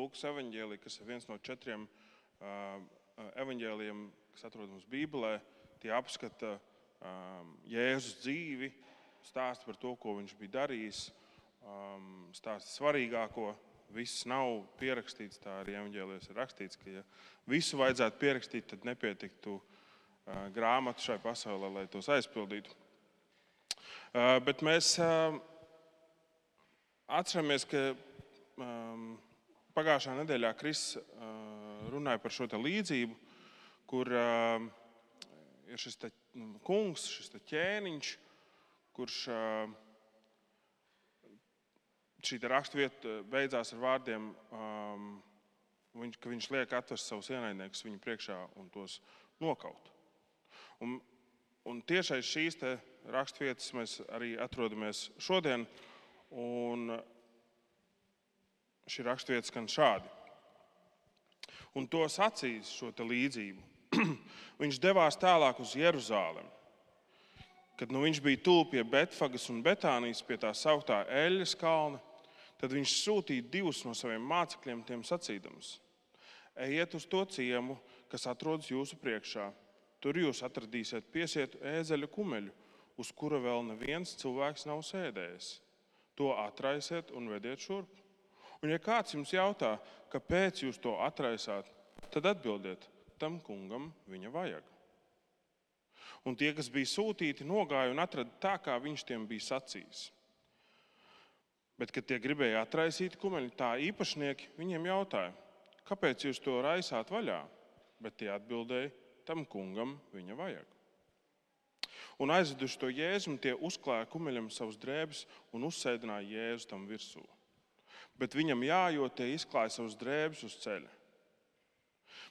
Lūkas evaņģēlija, kas ir viens no 4 evaņģēlijiem, kas atrodams Bībelē. Tie apskata Jēzus dzīvi, stāsta par to, ko viņš bija darījis, stāsta svarīgāko. Viss nav pierakstīts, tā arī evaņģēlijos ir rakstīts, ka ja visu vajadzētu pierakstīt, tad nepietiktu grāmatu šai pasaulē, lai tos aizpildītu. Bet mēs atceramies, ka pagājušā nedēļā Kris runāja par šo te līdzību, kur ir šis te kungs, šis te ķēniņš, kurš šī raksturvieta beidzās ar vārdiem, ka viņš liek atvest savus ienaidniekus viņu priekšā un tos nokaut. Un tieši aiz šīs te raksturvietas mēs arī atrodamies šodien, un šī raksturvieta skan šādi. Un to sacīs šo te līdzību. Viņš devās tālāk uz Jeruzālemi. Kad viņš bija tuvu pie Betfagas un Betānijas, pie tā sauktā Eļļas kalna, tad viņš sūtīja 2 no saviem mācekļiem, tiem sacīdams: ejiet uz to ciemu, kas atrodas jūsu priekšā. Tur jūs atradīsiet piesietu ēzeļu kumeļu, uz kura vēl neviens cilvēks nav sēdējis. To atraisiet un vediet šurp. Un ja kāds jums jautā, kāpēc jūs to atraisāt, tad atbildiet: tam kungam viņa vajag. Un tie, kas bija sūtīti, nogāja un atrada tā, kā viņš tiem bija sacījis. Bet, kad tie gribēja atraisīt kumeļu, tā īpašnieki viņiem jautāja: kāpēc jūs to raisāt vaļā? Bet tie atbildēja: tam kungam viņa vajag. Un aizveduši to Jēzu, tie uzklāja kumeļam savus drēbes un uzsēdināja Jēzu tam virsū. Bet viņam jājot, tie izklāja savus drēbes uz ceļa.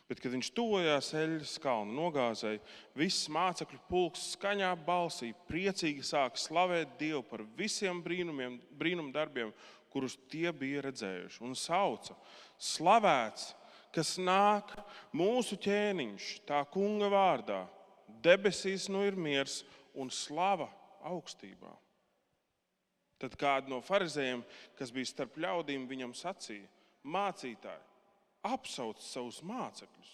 Bet, kad viņš tuvojās Eļļas kalna nogāzei, viss mācekļu pulks skaņā balsī priecīgi sāka slavēt Dievu par visiem brīnumdarbiem, kurus tie bija redzējuši. Un sauca: slavēts, kas nāk, mūsu ķēniņš, tā kunga vārdā. Debesīs nu ir miers un slava augstībā. Tad kādi no farizējiem, kas bija starp ļaudīm, viņam sacīja: mācītāji, apsauc savus mācekļus.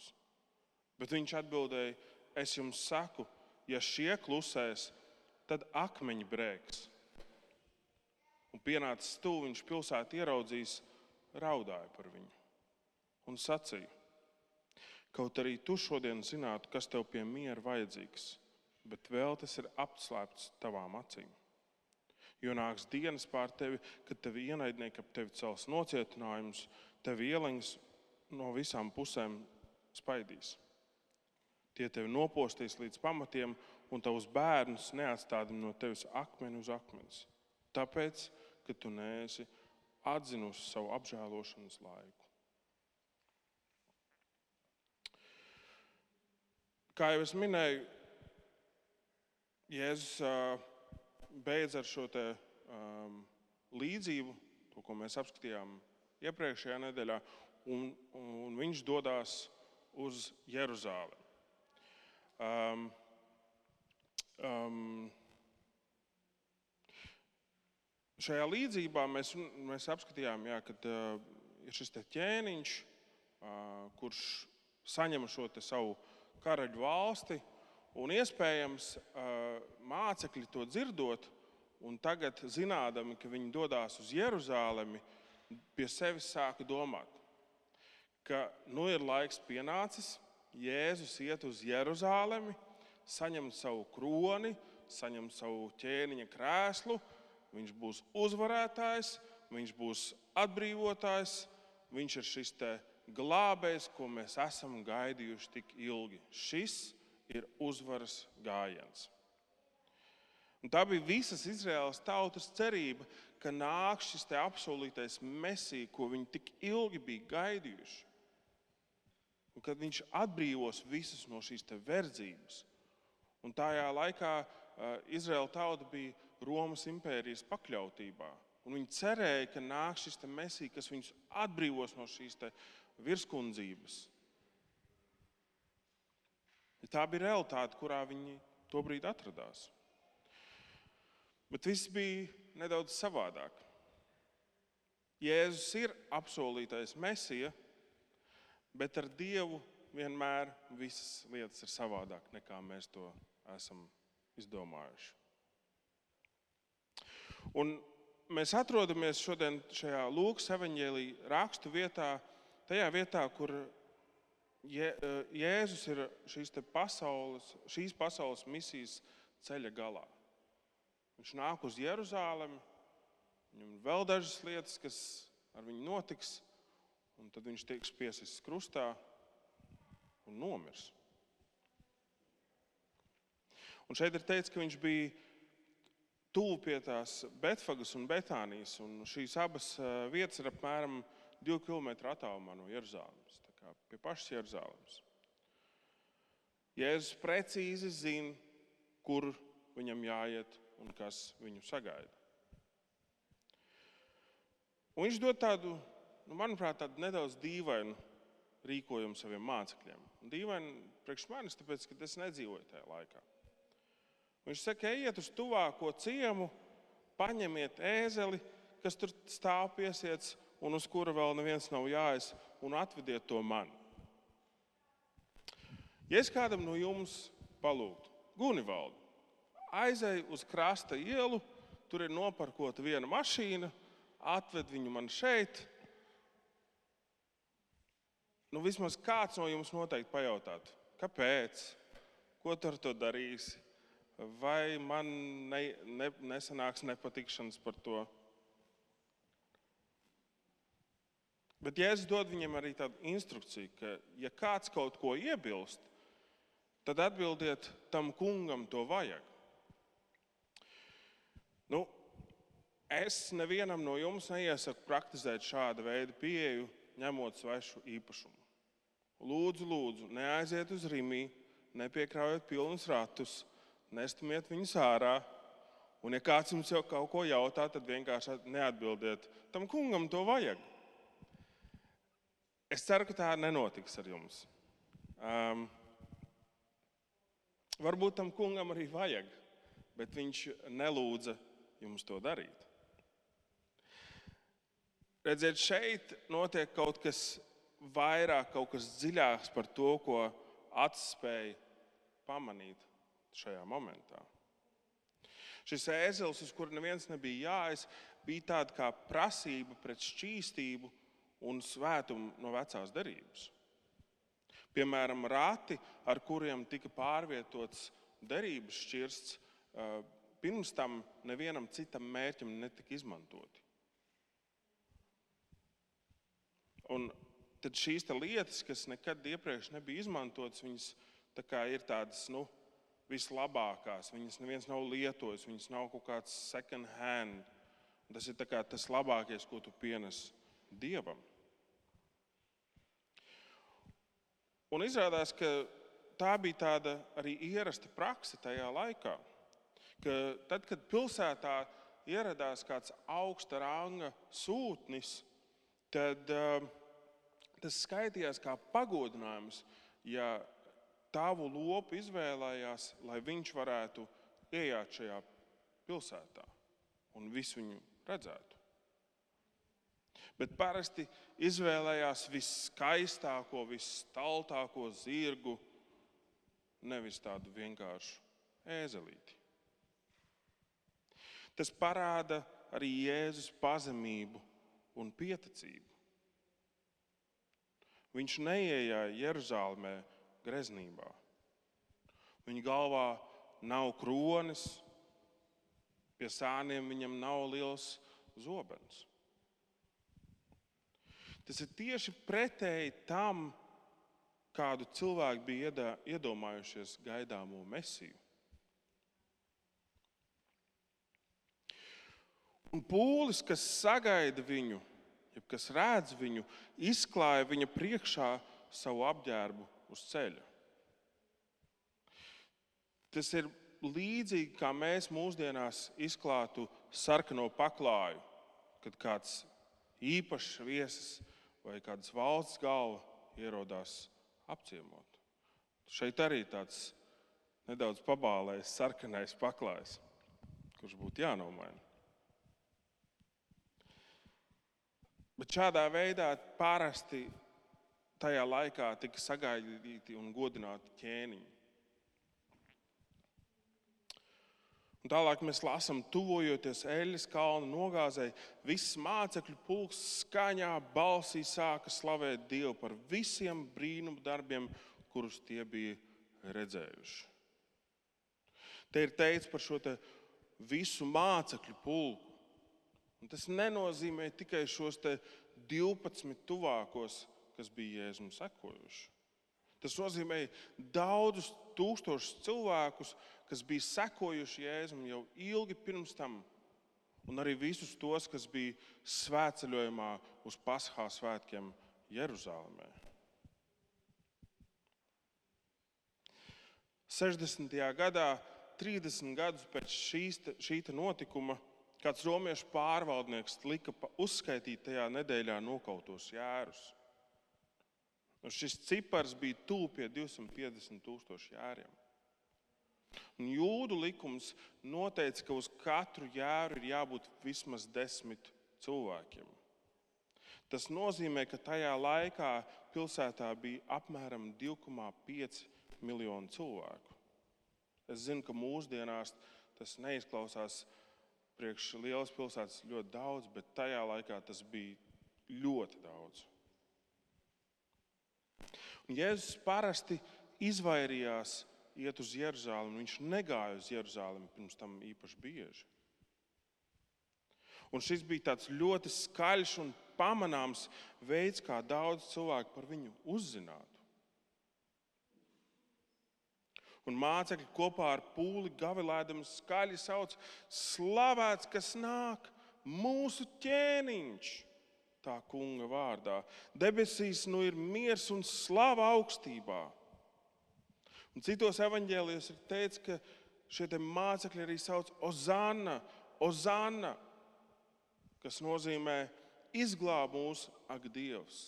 Bet viņš atbildēja: es jums saku, ja šie klusēs, tad akmeņi brēks. Un pienācis tuvu, viņš pilsētu ieraudzījis, raudāja par viņu un sacīja: kaut arī tu šodien zinātu, kas tev pie miera vajadzīgs, bet vēl tas ir apslēpts tavām acīm. Jo nāks dienas pār tevi, kad tevi ienaidnieki ap tevi cels nocietinājumus, tevi ieleņas no visām pusēm spaidīs. Tie tevi nopostīs līdz pamatiem, un tavus bērnus neatstādina no tevis akmeni uz akmens. Tāpēc, ka tu neesi atzinusi savu apžēlošanas laiku. Kā jau es minēju, Jēzus beidz ar šo te līdzību, to, ko mēs apskatījām iepriekšējā nedēļā, un viņš dodās uz Jeruzālemi. Šajā līdzībā mēs apskatījām, kad ir šis te ķēniņš, kurš saņem šo te savu karaļu valsti, un iespējams mācekļi to dzirdot, un tagad zinādami, ka viņi dodās uz Jeruzālemi, pie sevis sāka domāt, ka ir laiks pienācis, Jēzus iet uz Jeruzālemi, saņem savu kroni, saņem savu ķēniņa krēslu, viņš būs uzvarētājs, viņš būs atbrīvotājs, viņš ir šis te glābējs, ko mēs esam gaidījuši tik ilgi. Šis ir uzvaras gājiens. Un tā bija visas Izraēlas tautas cerība, ka nāk šis te apsolītais Mesija, ko viņi tik ilgi bija gaidījuši. Un kad viņš atbrīvos visus no šīs te verdzības. Un tajā laikā Izraēla tauta bija Romas impērijas pakļautībā. Un viņi cerēja, ka nāk šis te Mesija, kas viņus atbrīvos no šīs te virskundzības. Tā bija realitāte, kurā viņi tobrīd atradās. Bet viss bija nedaudz savādāk. Jēzus ir apsolītais Mesija, bet ar Dievu vienmēr visas lietas ir savādāk, nekā mēs to esam izdomājuši. Un mēs atrodamies šodien šajā Lūkas evaņģēlija rakstu vietā, tajā vietā, kur Jēzus ir šīs pasaules misijas ceļa galā. Viņš nāk uz Jeruzālemi, viņam ir vēl dažas lietas, kas ar viņu notiks, un tad viņš tiks piesists krustā un nomirs. Un šeit ir teikts, ka viņš bija tuvu pie tās Betfagas un Betānijas, un šīs abas vietas ir apmēram 2 kilometru attālumā no Jeruzālemes, tā kā pie pašas Jeruzālemes. Jēzus precīzi zina, kur viņam jāiet un kas viņu sagaida. Un viņš dod tādu, manuprāt, tādu nedaudz dīvainu rīkojumu saviem mācekļiem. Un dīvaini priekš manis, tāpēc, ka es nedzīvoju tajā laikā. Viņš saka, ejiet uz tuvāko ciemu, paņemiet ēzeli, kas tur stāv piesiets un uz kura vēl neviens nav jāies, un atvediet to man. Ja es kādam no jums palūgtu, Gunivaldu, aizej uz krasta ielu, tur ir noparkota viena mašīna, atved viņu man šeit. Vismaz kāds no jums noteikti pajautātu, kāpēc, ko tu ar to darīsi, vai man nesanāks nepatikšanas par to. Bet Jēzus dod viņam arī tādu instrukciju, ka ja kāds kaut ko iebilst, tad atbildiet tam kungam to vajag. Es nevienam no jums neiesaku praktizēt šāda veida pieeju, ņemot svešu īpašumu. Lūdzu, neaiziet uz Rimī, nepiekraujiet pilnus ratus, nestumiet viņus ārā, un ja kāds jums jau kaut ko jautā, tad vienkārši neatbildiet. Tam kungam to vajag. Es ceru, ka tā nenotiks ar jums. Varbūt tam kungam arī vajag, bet viņš nelūdza jums to darīt. Redziet, šeit notiek kaut kas vairāk, kaut kas dziļāks par to, ko acis spēja pamanīt šajā momentā. Šis ēzelis, uz kuru neviens nebija jāies, bija tāda kā prasība pret šķīstību un svētumu no vecās derības. Piemēram, rati, ar kuriem tika pārvietots derības šķirsts, pirms tam nevienam citam mērķim netika izmantoti. Un tad šīs lietas, kas nekad iepriekš nebija izmantotas, viņas tā kā ir tādas, vislabākās. Viņas neviens nav lietojis, viņas nav kaut kāds second hand. Tas ir tā kā tas labākais, ko tu pienes Dievam. Un izrādās, ka tā bija tāda arī ierasta prakse tajā laikā, ka tad, kad pilsētā ieradās kāds augsta ranga sūtnis, tad tas skaitījās kā pagodinājums, ja tavu lopu izvēlējās, lai viņš varētu ieiet šajā pilsētā un visu viņu redzētu. Bet parasti izvēlējās viskaistāko, visstaltāko zirgu, nevis tādu vienkāršu ēzelīti. Tas parāda arī Jēzus pazemību un pieticību. Viņš neieja Jeruzālemē greznībā. Viņa galvā nav kronis, pie sāniem viņam nav liels zobens. Tas ir tieši pretēji tam, kādu cilvēku bija iedomājušies gaidāmo Mesiju. Un pūlis, kas sagaida viņu, kas redz viņu, izklāja viņa priekšā savu apģērbu uz ceļa. Tas ir līdzīgi, kā mēs mūsdienās izklātu sarkano paklāju, kad kāds īpašs viesis vai kādas valsts galva ierodās apciemot. Šeit arī tāds nedaudz pabālējis sarkanais paklājs, kurš būtu jānomaina. Bet šādā veidā parasti tajā laikā tika sagaidīti un godināti ķēniņi. Un tālāk mēs lasām, tuvojoties Eļas kalna nogāzei, viss mācekļu pulks skaņā balsī sāka slavēt Dievu par visiem brīnumu darbiem, kurus tie bija redzējuši. Te ir teikts par šo visu mācekļu pulku. Un tas nenozīmē tikai šos 12 tuvākos, kas bija Jēzum sekojuši. Tas nozīmē daudzus tūkstošus cilvēkus, kas bija sekojuši Jēzum jau ilgi pirms tam, un arī visus tos, kas bija svētceļojumā uz Paskā svētkiem Jeruzalemē. 60. gadā, 30 gadus pēc šī notikuma, kāds romiešu pārvaldnieks lika uzskaitīt tajā nedēļā nokautos jērus. Un šis cipars bija tuvu pie 250,000 jēriem. Un jūdu likums noteica, ka uz katru jēru ir jābūt vismaz 10 cilvēkiem. Tas nozīmē, ka tajā laikā pilsētā bija apmēram 2,5 miljoni cilvēku. Es zinu, ka mūsdienās tas neizklausās priekš lielas pilsētas ļoti daudz, bet tajā laikā tas bija ļoti daudz. Un Jēzus parasti izvairījās iet uz Jeruzalemi. Viņš negāja uz Jeruzalemi pirms tam īpaši bieži. Un šis bija tāds ļoti skaļš un pamanāms veids, kā daudz cilvēku par viņu uzzinātu. Un mācekļi kopā ar pūli gavilēdami skaļi sauc: slavēts, kas nāk, mūsu ķēniņš, tā kunga vārdā. Debesīs nu ir miers un slava augstībā. Un citos evaņģēlijos ir teikts, ka šie mācekļi arī sauc Ozanna, Ozanna, kas nozīmē izglāb mūs, ak Dievs.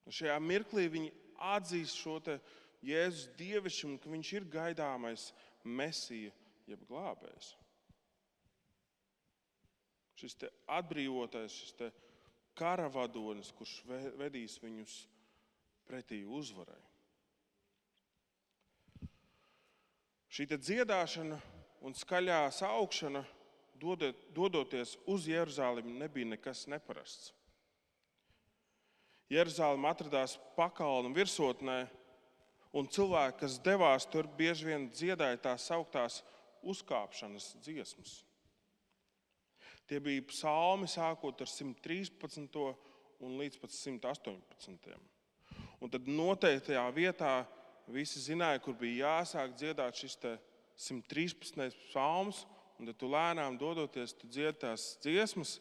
Un šajā mirklī viņi atzīst šo Jēzus dievišķumu, ka viņš ir gaidāmais Mesija, jeb glābējs. Šis atbrīvotais, šis karavadonis, kurš vedīs viņus pretī uzvarai. Šī dziedāšana un skaļā saukšana, dodoties uz Jeruzalemi, nebija nekas neparasts. Jeruzaleme atradās pakalnu virsotnē, un cilvēki, kas devās tur, bieži vien dziedāja tās sauktās uzkāpšanas dziesmas. Tie bija psalmi sākot ar 113. un līdz pat 118. Un tad noteiktajā vietā visi zināja, kur bija jāsāk dziedāt šis 113. psalms, un tad tu lēnām dodoties, tu dziedi tās dziesmas,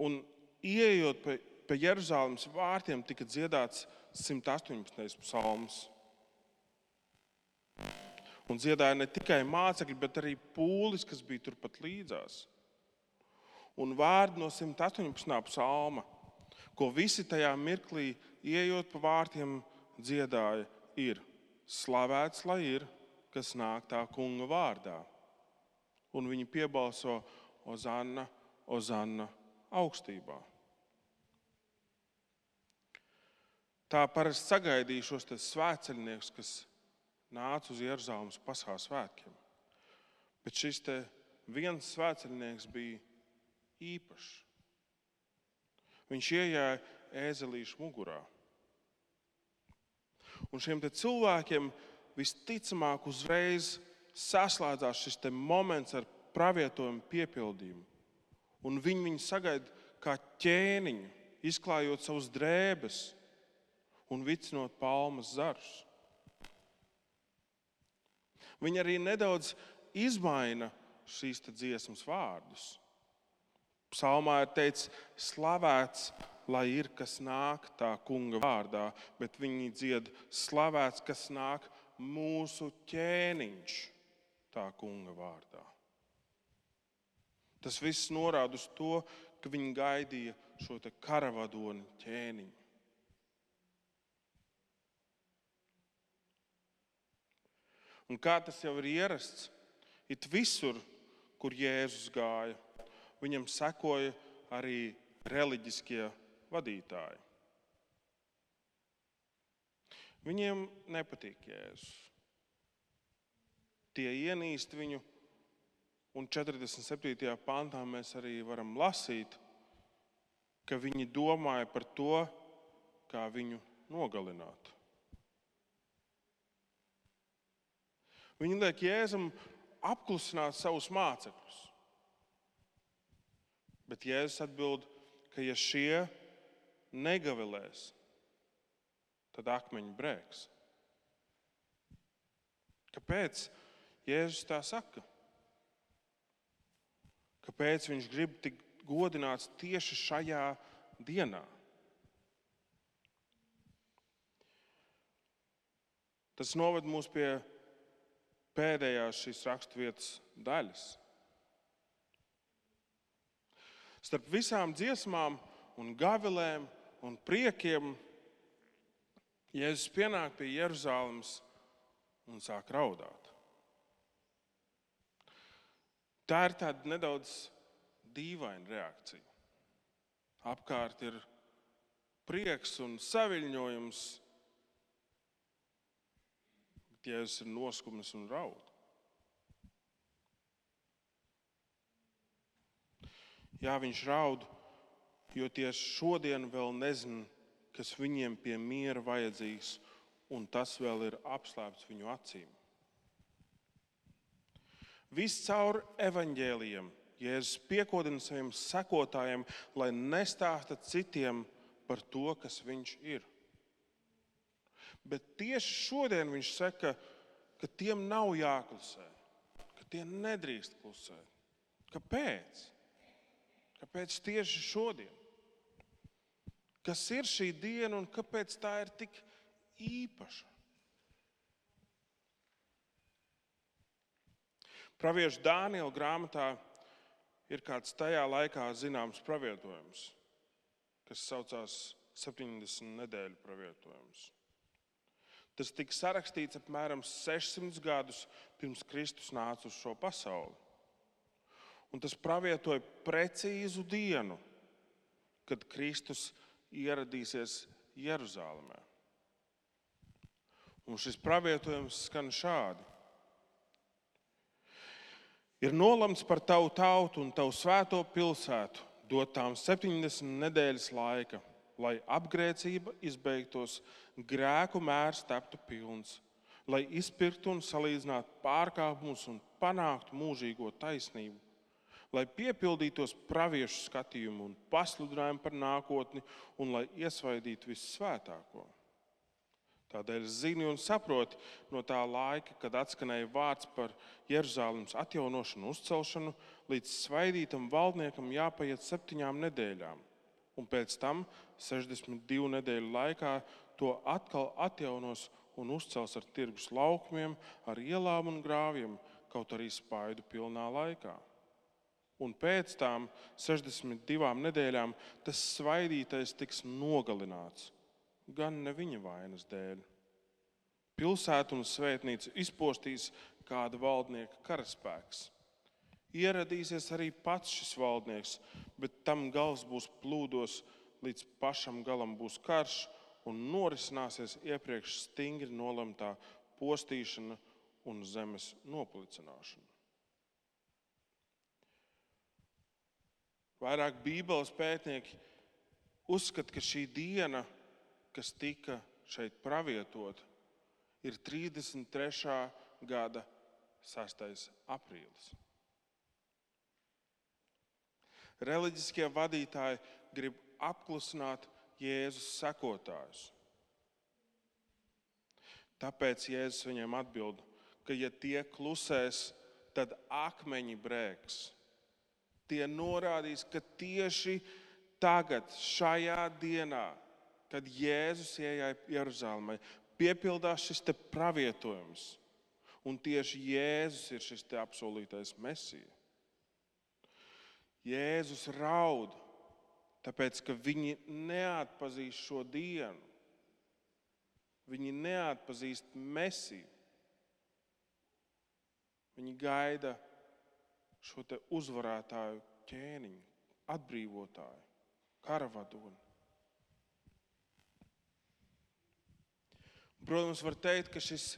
un ieejot pie Jeruzalemes vārtiem tika dziedāts 118. psalms. Un dziedāja ne tikai mācekļi, bet arī pūlis, kas bija turpat līdzās. Un vārdi no 118. psalma, ko visi tajā mirklī, ieejot pa vārtiem, dziedāja, ir: slavēts lai ir, kas nāk tā kunga vārdā. Un viņi piebalso: Ozanna, Ozanna augstībā. Tā parasti sagaidīja šos svētceļniekus, kas nāca uz Jeruzalemes Paskā svētkiem. Bet šis viens svētceļnieks bija īpašs. Viņš iejāja ēzelīšu mugurā. Un šiem cilvēkiem visticamāk uzreiz saslēdzās šis moments ar pravietojumu piepildījumu. Un viņi sagaida kā ķēniņu, izklājot savus drēbes un vicinot palmas zarus. Viņi arī nedaudz izmaina šīs dziesmas vārdus. Psalmā ir teikts: slavēts, lai ir, kas nāk tā kunga vārdā, bet viņi dzied: slavēts, kas nāk mūsu ķēniņš tā kunga vārdā. Tas viss norāda uz to, ka viņi gaidīja šo karavadoni ķēniņu. Un kā tas jau ir ierasts, it visur, kur Jēzus gāja, viņam sekoja arī reliģiskie vadītāji. Viņiem nepatīk Jēzus. Tie ienīst viņu, un 47. pantā mēs arī varam lasīt, ka viņi domāja par to, kā viņu nogalināt. Viņi liek Jēzum apklusināt savus mācekļus. Bet Jēzus atbild, ka ja šie negavilēs, tad akmeņi brēks. Kāpēc Jēzus tā saka? Kāpēc viņš grib tik godināts tieši šajā dienā? Tas noved mūs pie pēdējās šīs raksturvietas daļas. Starp visām dziesmām un gavilēm un priekiem Jēzus pienāk pie Jeruzalemes un sāk raudāt. Tā ir tāda nedaudz dīvaina reakcija. Apkārt ir prieks un saviļņojums, bet Jēzus ir noskumis un raud. Jā, viņš raud, jo tieši šodien vēl nezina, kas viņiem pie miera vajadzīgs, un tas vēl ir apslēpts viņu acīm. Viscaur evaņģēlijiem Jēzus piekodina saviem sekotājiem, lai nestāsta citiem par to, kas viņš ir. Bet tieši šodien viņš saka, ka tiem nav jāklusē, ka tie nedrīkst klusēt. Kāpēc? Kāpēc tieši šodien? Kas ir šī diena un kāpēc tā ir tik īpaša? Pravieša Dāniela grāmatā ir kāds tajā laikā zināms pravietojums, kas saucās 70 nedēļu pravietojums. Tas tika sarakstīts apmēram 600 gadus pirms Kristus nāca uz šo pasauli. Un tas pravietoja precīzu dienu, kad Kristus ieradīsies Jeruzālēmē. Un šis pravietojums skan šādi. Ir nolemts par tavu tautu un tavu svēto pilsētu dot tām 70 nedēļas laika, lai apgrēcība izbeigtos, grēku mērs taptu pilns, lai izpirktu un salīdzinātu pārkāpumus un panāktu mūžīgo taisnību, lai piepildītos praviešu skatījumu un pasludinājumu par nākotni un lai iesvaidītu vissvētāko. Tādēļ zini un saproti no tā laika, kad atskanēja vārds par Jeruzālemes atjaunošanu un uzcelšanu, līdz svaidītam valdniekam jāpaiet 7 nedēļām, un pēc tam 62 nedēļu laikā to atkal atjaunos un uzcels ar tirgus laukumiem, ar ielām un grāvjiem, kaut arī spaidu pilnā laikā. Un pēc tām 62 nedēļām tas svaidītais tiks nogalināts, gan ne viņa vainas dēļ. Pilsētu un svētnīcu izpostīs kāda valdnieka karaspēks. Ieradīsies arī pats šis valdnieks, bet tam gals būs plūdos, līdz pašam galam būs karš un norisināsies iepriekš stingri nolemtā postīšana un zemes noplicināšana. Vairāk Bībeles pētnieki uzskata, ka šī diena, kas tika šeit pravietota, ir 33. gada 6. aprīlis. Reliģiskie vadītāji grib apklusināt Jēzus sekotājus. Tāpēc Jēzus viņiem atbild, ka ja tie klusēs, tad akmeņi brēks. Tie norādīs, ka tieši tagad, šajā dienā, kad Jēzus ienāca Jeruzālēmē, piepildās šis te pravietojums. Un tieši Jēzus ir šis te apsolītais Mesija. Jēzus raud, tāpēc, ka viņi neatpazīst šo dienu. Viņi neatpazīst Mesiju. Viņi gaida šo te uzvarētāju ķēniņu, atbrīvotāju, karavadoni. Protams, var teikt, ka šis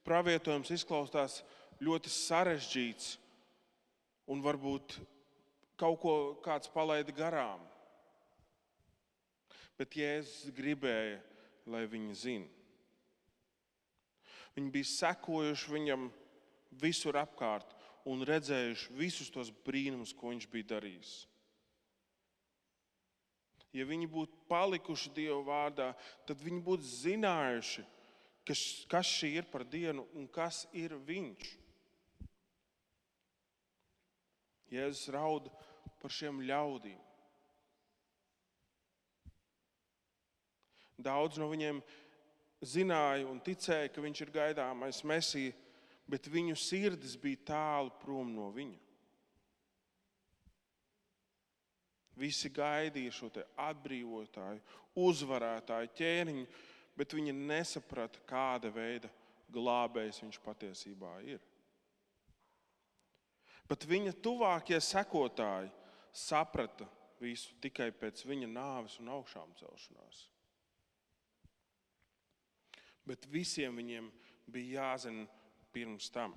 pravietojums izklausās ļoti sarežģīts un varbūt kaut ko kāds palaida garām. Bet Jēzus gribēja, lai viņi zina. Viņi bija sekojuši viņam visur apkārt un redzējuši visus tos brīnumus, ko viņš bija darījis. Ja viņi būtu palikuši Dieva vārdā, tad viņi būtu zinājuši, kas šī ir par dienu un kas ir viņš. Jēzus rauda par šiem ļaudīm. Daudz no viņiem zināja un ticēja, ka viņš ir gaidāmais Mesija, bet viņu sirdis bija tālu prom no viņa. Visi gaidīja šo te atbrīvotāju, uzvarētāju ķēniņu, bet viņi nesaprata, kāda veida glābējs viņš patiesībā ir. Bet viņa tuvākie sekotāji saprata visu tikai pēc viņa nāves un augšām celšanās. Bet visiem viņiem bija jāzina pirms tam.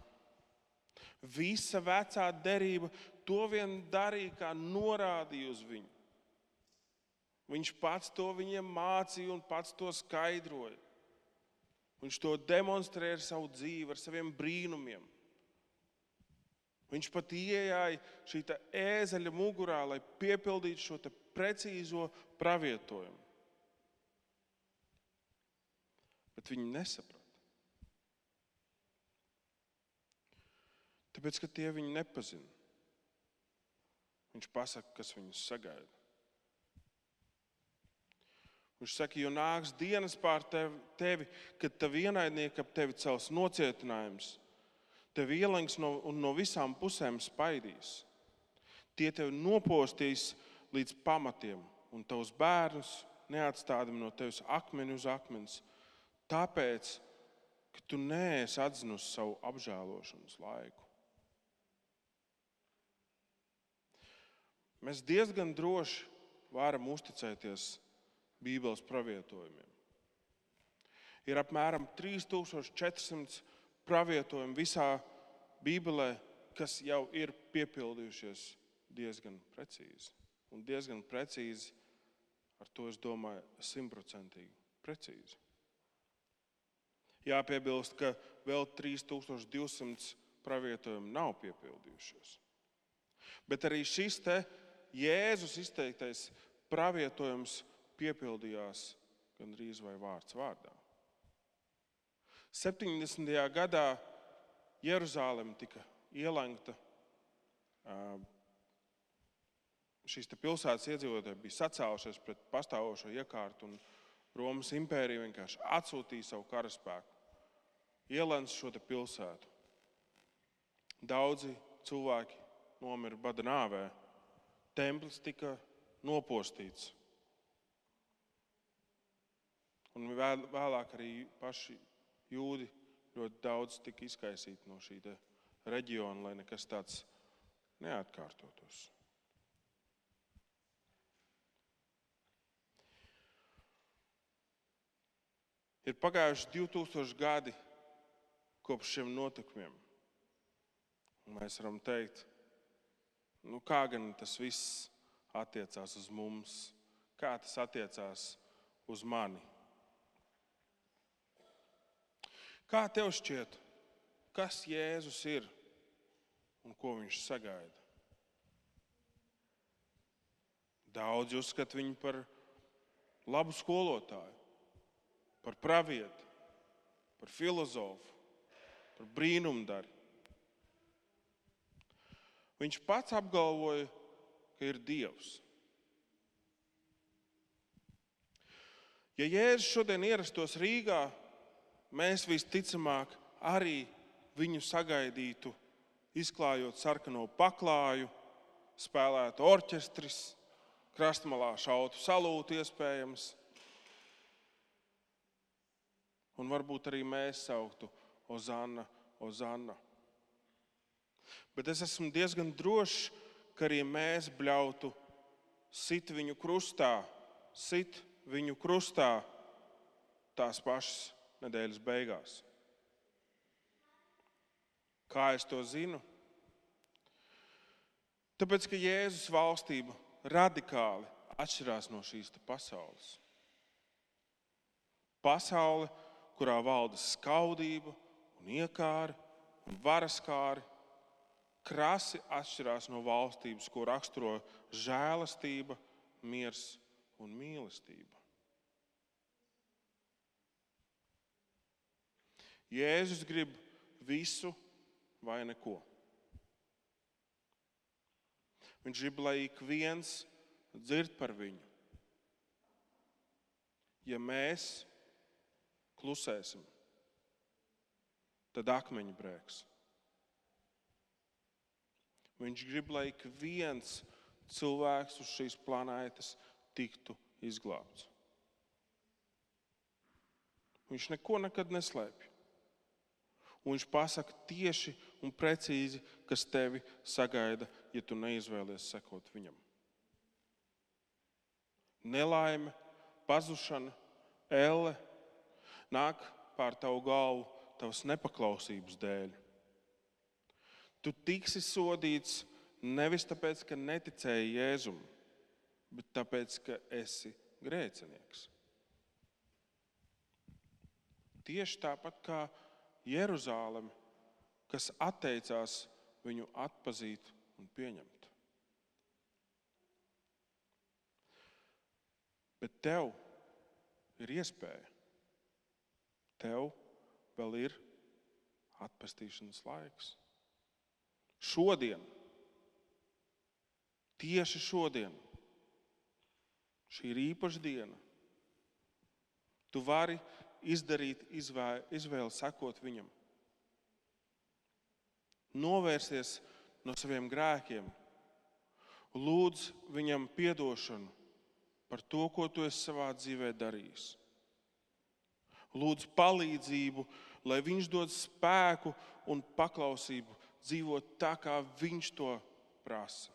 Visa vecā derība to vien darīja, kā norādīja uz viņu. Viņš pats to viņiem mācīja un pats to skaidroja. Viņš to demonstrēja ar savu dzīvi, ar saviem brīnumiem. Viņš pat iejāja šī ēzeļa mugurā, lai piepildītu šo precīzo pravietojumu. Bet viņi nesaprata. Tāpēc, ka tie viņu nepazina. Viņš pasaka, kas viņus sagaida. Viņš saka, jo nāks dienas pār tevi, kad tavi ienaidnieki ap tevi cels nocietinājums, tevi ielenks un no visām pusēm spaidīs. Tie tevi nopostīs līdz pamatiem, un tavus bērnus neatstādami no tevis akmeni uz akmens, tāpēc, ka tu neesi atzinusi savu apžēlošanas laiku. Mēs diezgan droši varam uzticēties Bībeles pravietojumiem. Ir apmēram 3400 pravietojumi visā Bībelē, kas jau ir piepildījušies diezgan precīzi. Un diezgan precīzi, ar to es domāju, 100% precīzi. Jāpiebilst, ka vēl 3200 pravietojumi nav piepildījušies. Bet arī šis Jēzus izteiktais pravietojums piepildījās gandrīz vai vārds vārdā. 70. gadā Jeruzaleme tika ielengta. Šīs pilsētas iedzīvotāji bija sacēlušies pret pastāvošo iekārtu, un Romas impērija vienkārši atsūtīja savu karaspēku, ielenca šo pilsētu. Daudzi cilvēki nomira bada nāvē. Templis tika nopostīts. Un vēlāk arī paši jūdi ļoti daudz tika izkaisīti no šī reģiona, lai nekas tāds neatkārtotos. Ir pagājuši 2000 gadi kopš šiem notikumiem. Un mēs varam teikt, kā gan tas viss attiecās uz mums, kā tas attiecās uz mani. Kā tev šķiet, kas Jēzus ir un ko viņš sagaida? Daudzi uzskata viņu par labu skolotāju, par pravieti, par filozofu, par brīnumdari. Viņš pats apgalvoja, ka ir Dievs. Ja Jēzus šodien ierastos Rīgā, mēs visticamāk arī viņu sagaidītu, izklājot sarkano paklāju, spēlētu orķestris, krastmalā šautu salūtu iespējams. Un varbūt arī mēs sauktu Ozanna, Ozanna. Bet es esmu diezgan drošs, ka arī mēs bļautu sit viņu krustā tās pašas nedēļas beigās. Kā es to zinu? Tāpēc, ka Jēzus valstība radikāli atšķirās no šīs pasaules. Pasaule, kurā valda skaudība un iekāri un varaskāri, krasi atšķirās no valstības, ko raksturo žēlastība, miers un mīlestība. Jēzus grib visu vai neko. Viņš grib, lai ik viens dzird par viņu. Ja mēs klusēsim, tad akmeņi brēks. Viņš grib, lai ik viens cilvēks uz šīs planētas tiktu izglābts. Viņš neko nekad neslēpj. Un viņš pasaka tieši un precīzi, kas tevi sagaida, ja tu neizvēlies sekot viņam. Nelaime, pazušana, elle nāk pār tavu galvu tavas nepaklausības dēļ. Tu tiksi sodīts nevis tāpēc, ka neticēji Jēzum, bet tāpēc, ka esi grēcinieks. Tieši tāpat kā Jeruzāleme, kas atteicās viņu atpazīt un pieņemt. Bet tev ir iespēja. Tev vēl ir atpestīšanas laiks. Šodien, tieši šodien, šī ir īpaša diena. Tu vari izdarīt izvēli sekot viņam. Novērsties no saviem grēkiem. Lūdz viņam piedošanu par to, ko tu esi savā dzīvē darījis. Lūdz palīdzību, lai viņš dod spēku un paklausību dzīvot tā, kā viņš to prasa.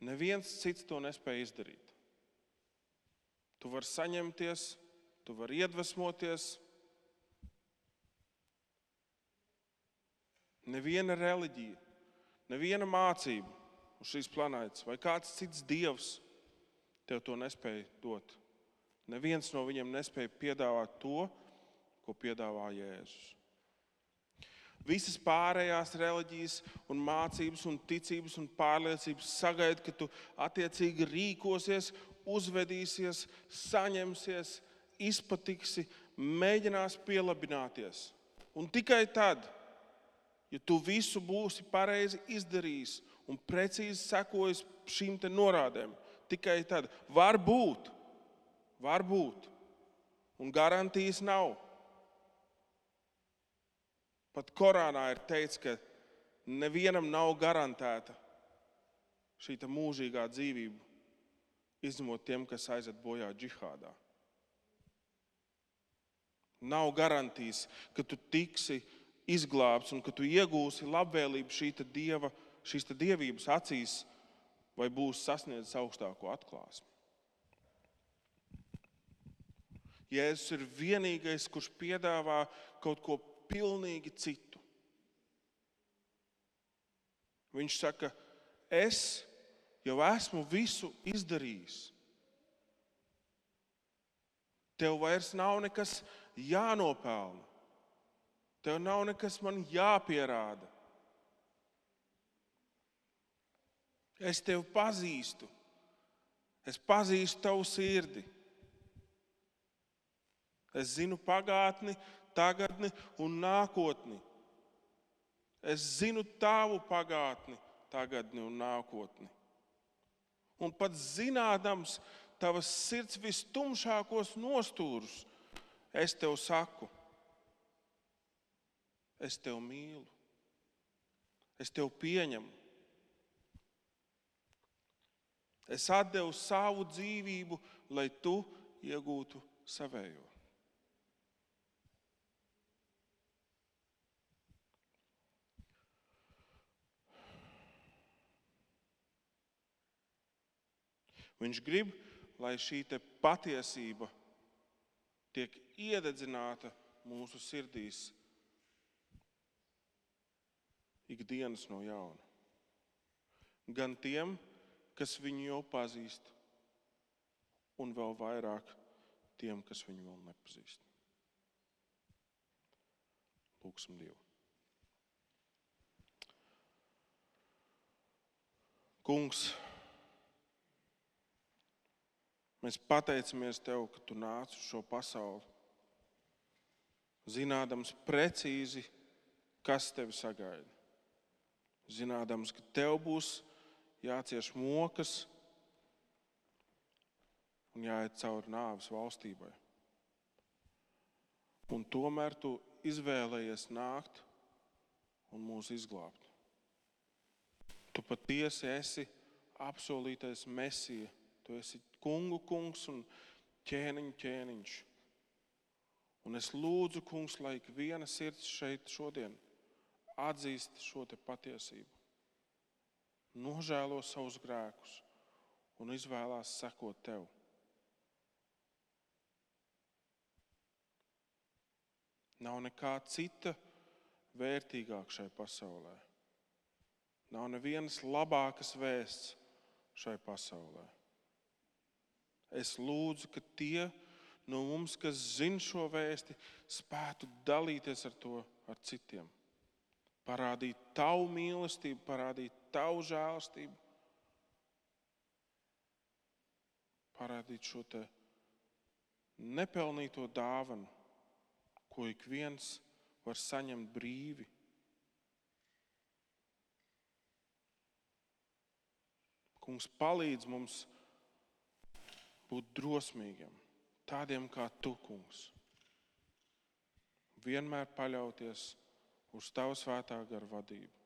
Neviens cits to nespēja izdarīt. Tu vari saņemties, tu vari iedvesmoties. Neviena reliģija, neviena mācība uz šīs planētas vai kāds cits dievs tev to nespēja dot. Neviens no viņiem nespēja piedāvāt to, ko piedāvā Jēzus. Visas pārējās reliģijas un mācības un ticības un pārliecības sagaida, ka tu attiecīgi rīkosies, uzvedīsies, saņemsies, izpatiksi, mēģinās pielabināties. Un tikai tad, ja tu visu būsi pareizi izdarījis un precīzi sekojis šīm te norādēm, tikai tad var būt, un garantijas nav. Pat Korānā ir teikts, ka nevienam nav garantēta šī mūžīgā dzīvība, izņemot tiem, kas aiziet bojā džihādā. Nav garantijas, ka tu tiksi izglābts un ka tu iegūsi labvēlību šīs dievības acīs vai būsi sasniedzis augstāko atklāsmi. Jēzus ir vienīgais, kurš piedāvā kaut ko pilnīgi citu. Viņš saka, es jau esmu visu izdarījis. Tev vairs nav nekas jānopelna. Tev nav nekas man jāpierāda. Es tevi pazīstu. Es pazīstu tavu sirdi. Es zinu pagātni, tagadni un nākotni. Es zinu tavu pagātni, tagadni un nākotni. Un pat zinādams tavas sirds vistumšākos nostūrus, es tev saku, es tev mīlu, es tev pieņemu. Es atdevu savu dzīvību, lai tu iegūtu savējo. Viņš grib, lai šī patiesība tiek iededzināta mūsu sirdīs ikdienas no jauna. Gan tiem, kas viņu jau pazīst, un vēl vairāk tiem, kas viņu vēl nepazīst. Lūksim Dievu. Kungs, mēs pateicamies Tev, ka Tu nāc uz šo pasauli, zinādams precīzi, kas Tevi sagaida. Zinādams, ka Tev būs jācieš mokas un jāiet cauri nāves valstībai. Un tomēr Tu izvēlējies nākt un mūs izglābt. Tu patiesi esi apsolītais Mesija. Tu esi kungu kungs un ķēniņu ķēniņš. Un es lūdzu, kungs, lai ik viena sirds šeit šodien atzīst šo patiesību. Nožēlo savus grēkus un izvēlās sekot Tev. Nav nekā cita vērtīgāk šai pasaulē. Nav nevienas labākas vēsts šai pasaulē. Es lūdzu, ka tie no mums, kas zina šo vēsti, spētu dalīties ar to ar citiem. Parādīt Tavu mīlestību, parādīt Tavu žēlastību. Parādīt šo nepelnīto dāvanu, ko ik viens var saņemt brīvi. Kungs, palīdz mums būt drosmīgiem, tādiem kā Tu, Kungs. Vienmēr paļauties uz Tavu svētā gara vadību.